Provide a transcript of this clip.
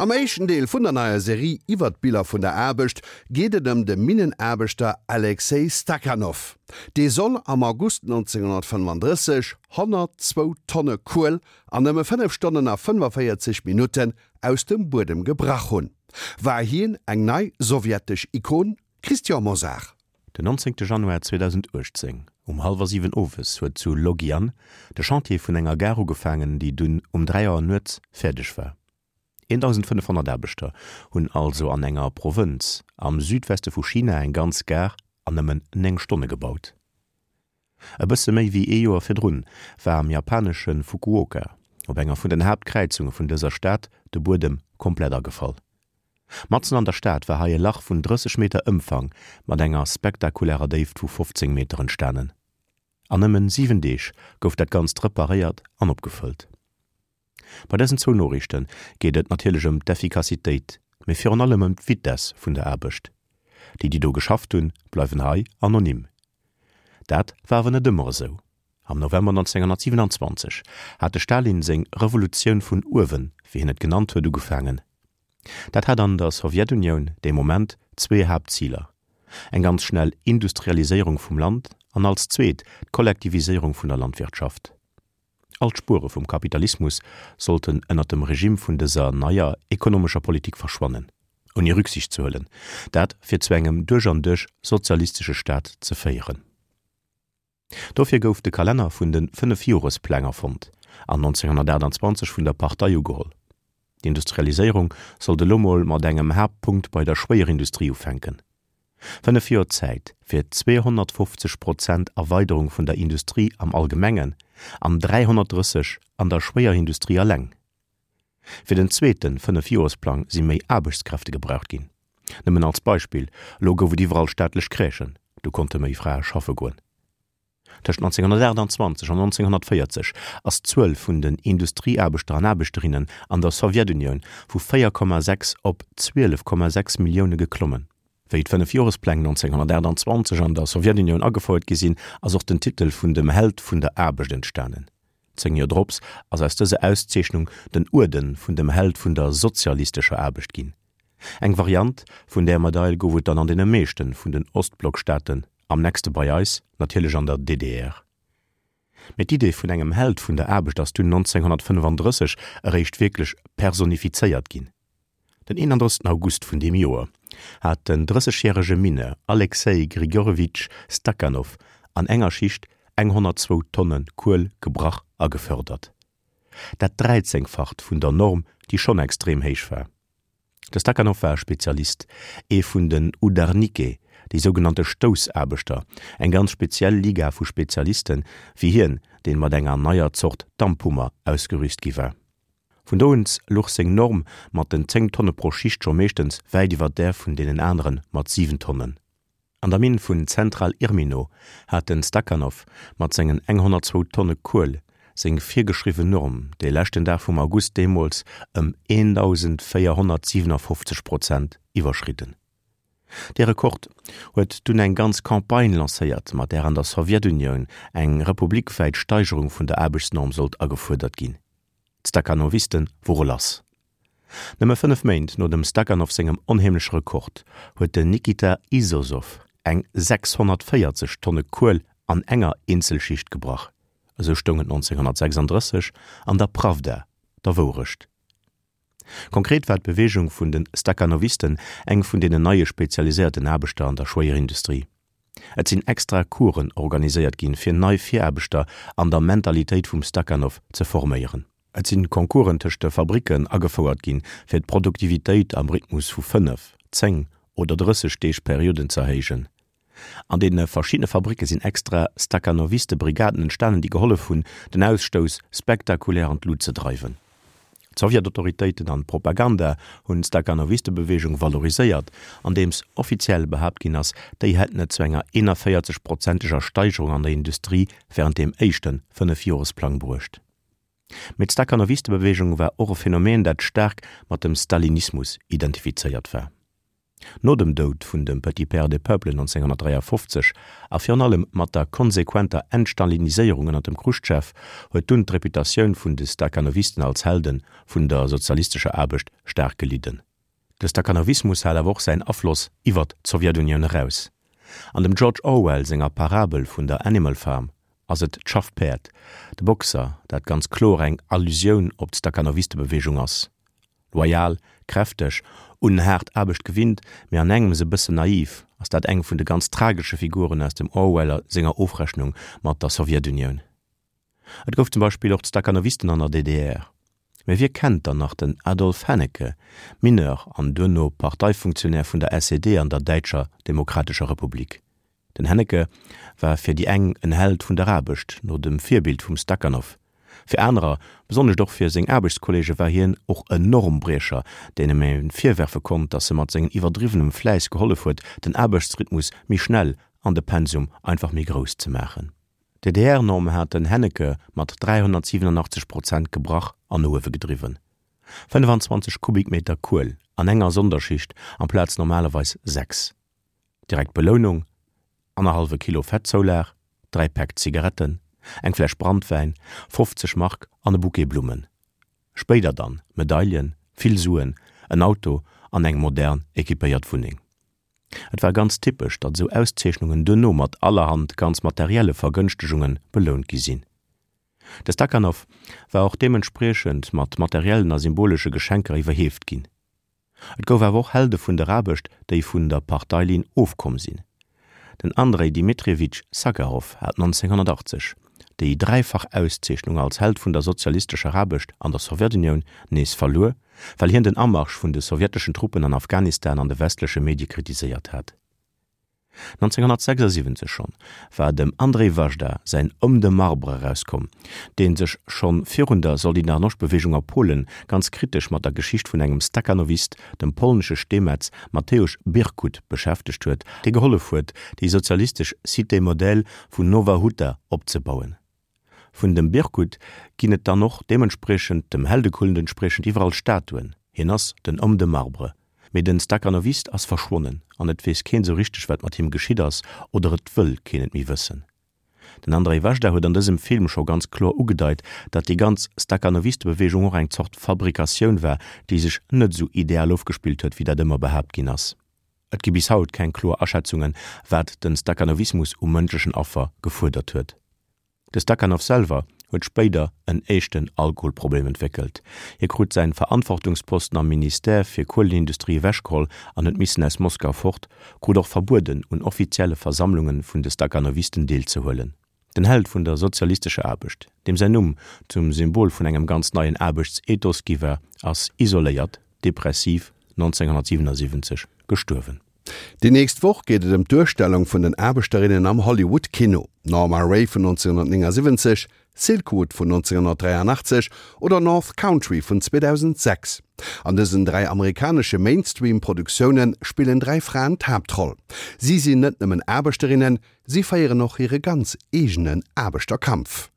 Am éischten Deel vun der neier Serie iwwer d'Biller vun der Aarbecht geet et ëm de Minnenaarbechter Alexej Stakhanov. Dee soll am August 1935 102 Tonne Kuel an nëmme 5 Stonnen a 45 Minutten aus dem Buedem gebrach hunn. War hien eng nei sowjetesch Ikon? Christian Mosar. Den 19 Januar 2018 um hallwer 7 owes huet zu Logyan de Chantier vun enger Gare ugefaangen, déi dunn um 3 Auer nuets fäerdeg war. 1.500 Aarbechter hunn also an enger Provënz am Südweste vu China eng ganz Gare an nëmmen 9 Stonne gebaut. E bësse méi wéi ee Joer virdrun war am japanesche Fukuoka op enger vun den Haaptkräizunge vun dëser Stad de Buedem komplett agefall. Matzen an der Stad war hei e Lach vun 30 Meter Ëmfang mat enger spektakulärer Déift vu 15 Meter entstanen. An nëmmen 7 Deeg gouf dat Ganzt reparéiert an opgefëllt. Bei dësen zwou Noriichte geet et natierlech ëm d'Effikassitéit, mee virun allem ëm d'Vitess vun der Aarbecht. Déi, déi do geschafft hunn, bleiwen hei anonym. Dat war awer net ëmmer esou. Am November 1927 hat de Stalin seng Revolutioun vun uewen, wéi hien et genannt huet, ugefaangen. Dat hat an der Sowjetunioun dee Moment zwee Haaptziler, eng ganz schnell Industrialiséierung vum Land an als zweet d'Kollektiviséierung vun der Landwirtschaft. All d'Spuere vum Kapitalismus sollten ënner dem Regime vun dëser neier ekonomescher Politik verschwannen, ouni Rücksicht ze huelen, dat fir zu engem duerch an duerch sozialistesche Staat ze féieren. Dofir gouf de Kalenner vun de Fënnefjorespläng erfonnt an 1928 vun der Partei ugeholl. D'Industrialiséierung sollt elo mol mat engem Haaptpunkt bei der Schwéierindustrie ufänken. 5 Joer Zäit fir 250 Prozent Erweiderung vun der Industrie am Allgemengen an 330 an der Schwéierindustrie alleng. Fir den zweete Fënnefjoresplang si méi Aarbechtskräfte gebraucht ginn. Nëmmen als Beispill, elo gouf et iwwerall staatlech Crèchen, do konnte méi Frae schaffe goen. Tëscht 1928 an 1940 ass d'Zuel vun den Industrieaarbechter an Aarbechterinnen an der Sowjetunioun vu 4,6 op 12,6 Millioune geklommen. Wéi d'Fënnefjorespläng 1928 an der Sowjetunioun agefouert gi sinn, ass och den Titel vun dem Held vun der Aarbecht entstanen. Zéng Joer drops ass aus dëser Auszeechnung den Uerden vun dem Held vun der sozialistescher Aarbecht ginn. Eng Variant vun där Medail gouf et dann an deene meeschte vun den Ostblockstaaten, am nächste bei eis natierlech an der DDR. Mee d'Idee vun engem Held vun der Aarbecht ass dunn 1935 eréischt wierklech personifizéiert ginn. Den 31 August vun deem Joer hat den drëssegjärege Mineur Alexei Grigorjewitsch Stakhanov an enger Schicht eng 102 Tonne Kuel gebrach a gefördert. Dat Dräizéngfacht vun der Norm, déi schonn extrem héich war. De Stakhanov war e Spezialist, ee vun den Udarnike, déi sougenannte Stoussaarbechter, eng ganz speziell Liga vu Spezialisten, wéi hien, deen mat enger neier Zort Damphummer ausgerüst gi war. Vun do un luch seng Norm mat den 10 Tonne pro Schicht scho meeschtens wäit iwwer där vun deenen anere mat 7 Tonnen. An der Minn vun Zentral Irmino hat den Stakhanov mat sengen 102 Tonne Kuel seng virgeschriwwen Norm dee leschten Dag vum August deemools ëm 1.457 Prozent iwwerschridden. Dee Rekord huet dunn eng ganz Campagne lancéiert, mat där an der Sowjetunioun eng republikwäit Steigerung vun der Aarbechtsnorm sollt agefuerdert ginn. D'Stakhanoviste wore lass. Nëmme 5 Méint no dem Stakhanov sengem onheemleche Rekord huet den Nikita Izozov eng 640 Tonne Kuel an enger Eenzelschicht gebrach, esou stoung et 1936 an der Prawda, der Wourecht. Konkret war d'Beweegung vun de Stakhanovisten eng vun deenen neie spezialiséierten Aarbechter an der Schwéierindustrie. Et sinn extra Coursen organiséiert ginn, fir nei Viraarbechter an der Mentalitéit vum Stakhanov ze forméieren. Et sinn Concoursen tëscht de Fabricken agefouert ginn, fir d'Produktivitéit am Rhythmus vu 5, 10 oder 30 Deeg Perioden z'erhéijen. An deene verschiddene Fabricke sinn extra Stakhanoviste-Brigaden entstanen, déi gehollef hunn, den Ausstouss spektakulär an d'Lut ze dreiwen. D'Sowjetautoritéiten an d'Propaganda hunn d'Stakhanoviste-Beweegung valoriséiert, andeems offiziell behaapt ginn ass, déi hätten et zu enger 41 prozenteger Steigerung an der Industrie wärend deem éischte Fënnefjoresplang bruecht. Mee d'Stakhanoviste-Beweegung war och e Phänomen, dat staark mat dem Stalinismus identifizéiert war. No dem Doud vun dem Petit Père des Peuples 1953 a virun allem mat der konsequenter Entstaliniséierung ënner dem Chruschtschow huet dunn d'Reputatioun vun de Stakhanovisten als Helde vun der sozialistescher Aarbecht staark gelidden. De Stakhanovismus hat awer och säin Afloss iwwert d'Sowjetunioun eraus. An dem George Orwell senger Parabel vun der Animal Farm ass et d'Schaffpäerd, de Boxer, dat ganz kloer eng Allusioun op d'Stakhanoviste-Beweegung ass. Loyal, kräfteg, un haart Aarbecht gewinnt, mee an engems e bëssen naiv, ass dat eng vun de ganz tragesche Figuren aus dem Orwell senger Ofrechnung mat der Sowjetunioun. Et gouf zum Beispill och d'Stakhanovisten an der DDR. Mee wie kennt dann nach den Adolf Hennecke, Mineur an duerno Parteifunktionär vun der SED an der Däitscher Demokratescher Republik? Den Hennecke war fir déi eng en Held vun der Aarbecht, no dem Virbild vum Stakhanov. Fir anerer, besonnescht och fir seng Aarbechtskolleege war hien och en Normbriecher, denem ee virwerfe konnt, datt e mat sengen iwwerdriwwenem Fläiss gehollef huet, den Aarbechtsrhythmus méi schnell an de Pensum einfach méi grouss ze maachen. D'DDR-Norm hat den Hennecke mat 387 Prozent gebrach an no uewe gedriwwen. 25 Kubikmeter Kuel an enger Sonderschicht amplaz normalerweis 6. Direkt Belounung, annerhallwe Kilo Fettzoulag, 3 Päck Zigaretten, eng Fläsch Brandwäin, 50 Mark an e Bouquet Blummen. Spéider dann Medaillen, vill Suen, en Auto an eng modern equipéiert Wunneng. Et war ganz typesch, datt esou Auszeechnungen duerno mat allerhand ganz materielle Vergënschtegunge belount gi sinn. De Stakhanov war och deementspriechend mat materiellen a symbolesche Geschenker iwwerheeft ginn. Et gouf awer och Helde vun der Aarbecht, déi vun der Parteilinn ofkomm sinn. Den Andrei Dmitrijewitsch Sacharow hat 1980 déi dräifach Auszeechnung als Held vun der sozialistescher Aarbecht an der Sowjetunioun nees verluer, well hien den Amarsch vun de sowjeteschen Truppen an Afghanistan an de westleche Medie kritiséiert hat. 1976 schonn war dem Andrzej Wajda säin Homme de marbre erauskomm, dee sech schonn virun der Solidarnoscht-Beweegung a Polen ganz kritesch mat der Geschicht vun engem Stakhanovist, dem polnesche Steemetz Mateusz Birkut, beschäftegt huet, dee gehollef huet, déi sozialistesch Cité modèle vun Nowa Huta opzebauen. Vun dem Birkut ginn et dann och deementspriechend, dem Heldekult entspriechend, iwwerall Statuen. Hien ass den Homme de marbre. Mee den Stakhanovist ass verschwonnen an et weess keen sou richteg wat mat him geschitt ass oder et wëll keen et méi wëssen. Den Andrzej Wajda huet an dësem Film scho ganz kloer ugedeit, datt déi ganz Stakhanovistebeweegung och eng Zort Fabrikatioun war, déi sech net sou ideal ofgespillt huet wéi dat ëmmer behaapt ginn ass. Et gi bis haut keng kloer Aschätzungen, wat den Stakhanovismus u mënschlechen Affer gefuerdert huet. De Stakhanov selwer huet spéider en éischten Alkoholproblem entwéckelt. Hie krut säin Verantwortungsposten am Ministère fir Kuelenindustrie ewechgeholl an huet missen aus Moskau fort, krut och verbueden un offizielle Versammlunge vun de Stakhanovisten deelzehuelen. Den Held vun der sozialistescher Aarbecht, deem säin Numm zum Symbol vun engem ganz neien Aarbechtsethos gi war, ass isoléiert, depressiv 1977 gestuerwen. Déi nächst Woch geet et ëm d'Duerstellung vun den Aarbechterinnen am Hollywood-Kino. Norma Rae vun 1979, Silkwood vun 1983 oder North Country vun 2006. An dësen 3 amerikanesche Mainstream-Produktioune spillen 3 Fraen d'Haaptroll. Si sinn net nëmmen Aarbechterinnen, si féieren och hire ganz eegenen Aarbechterkampf.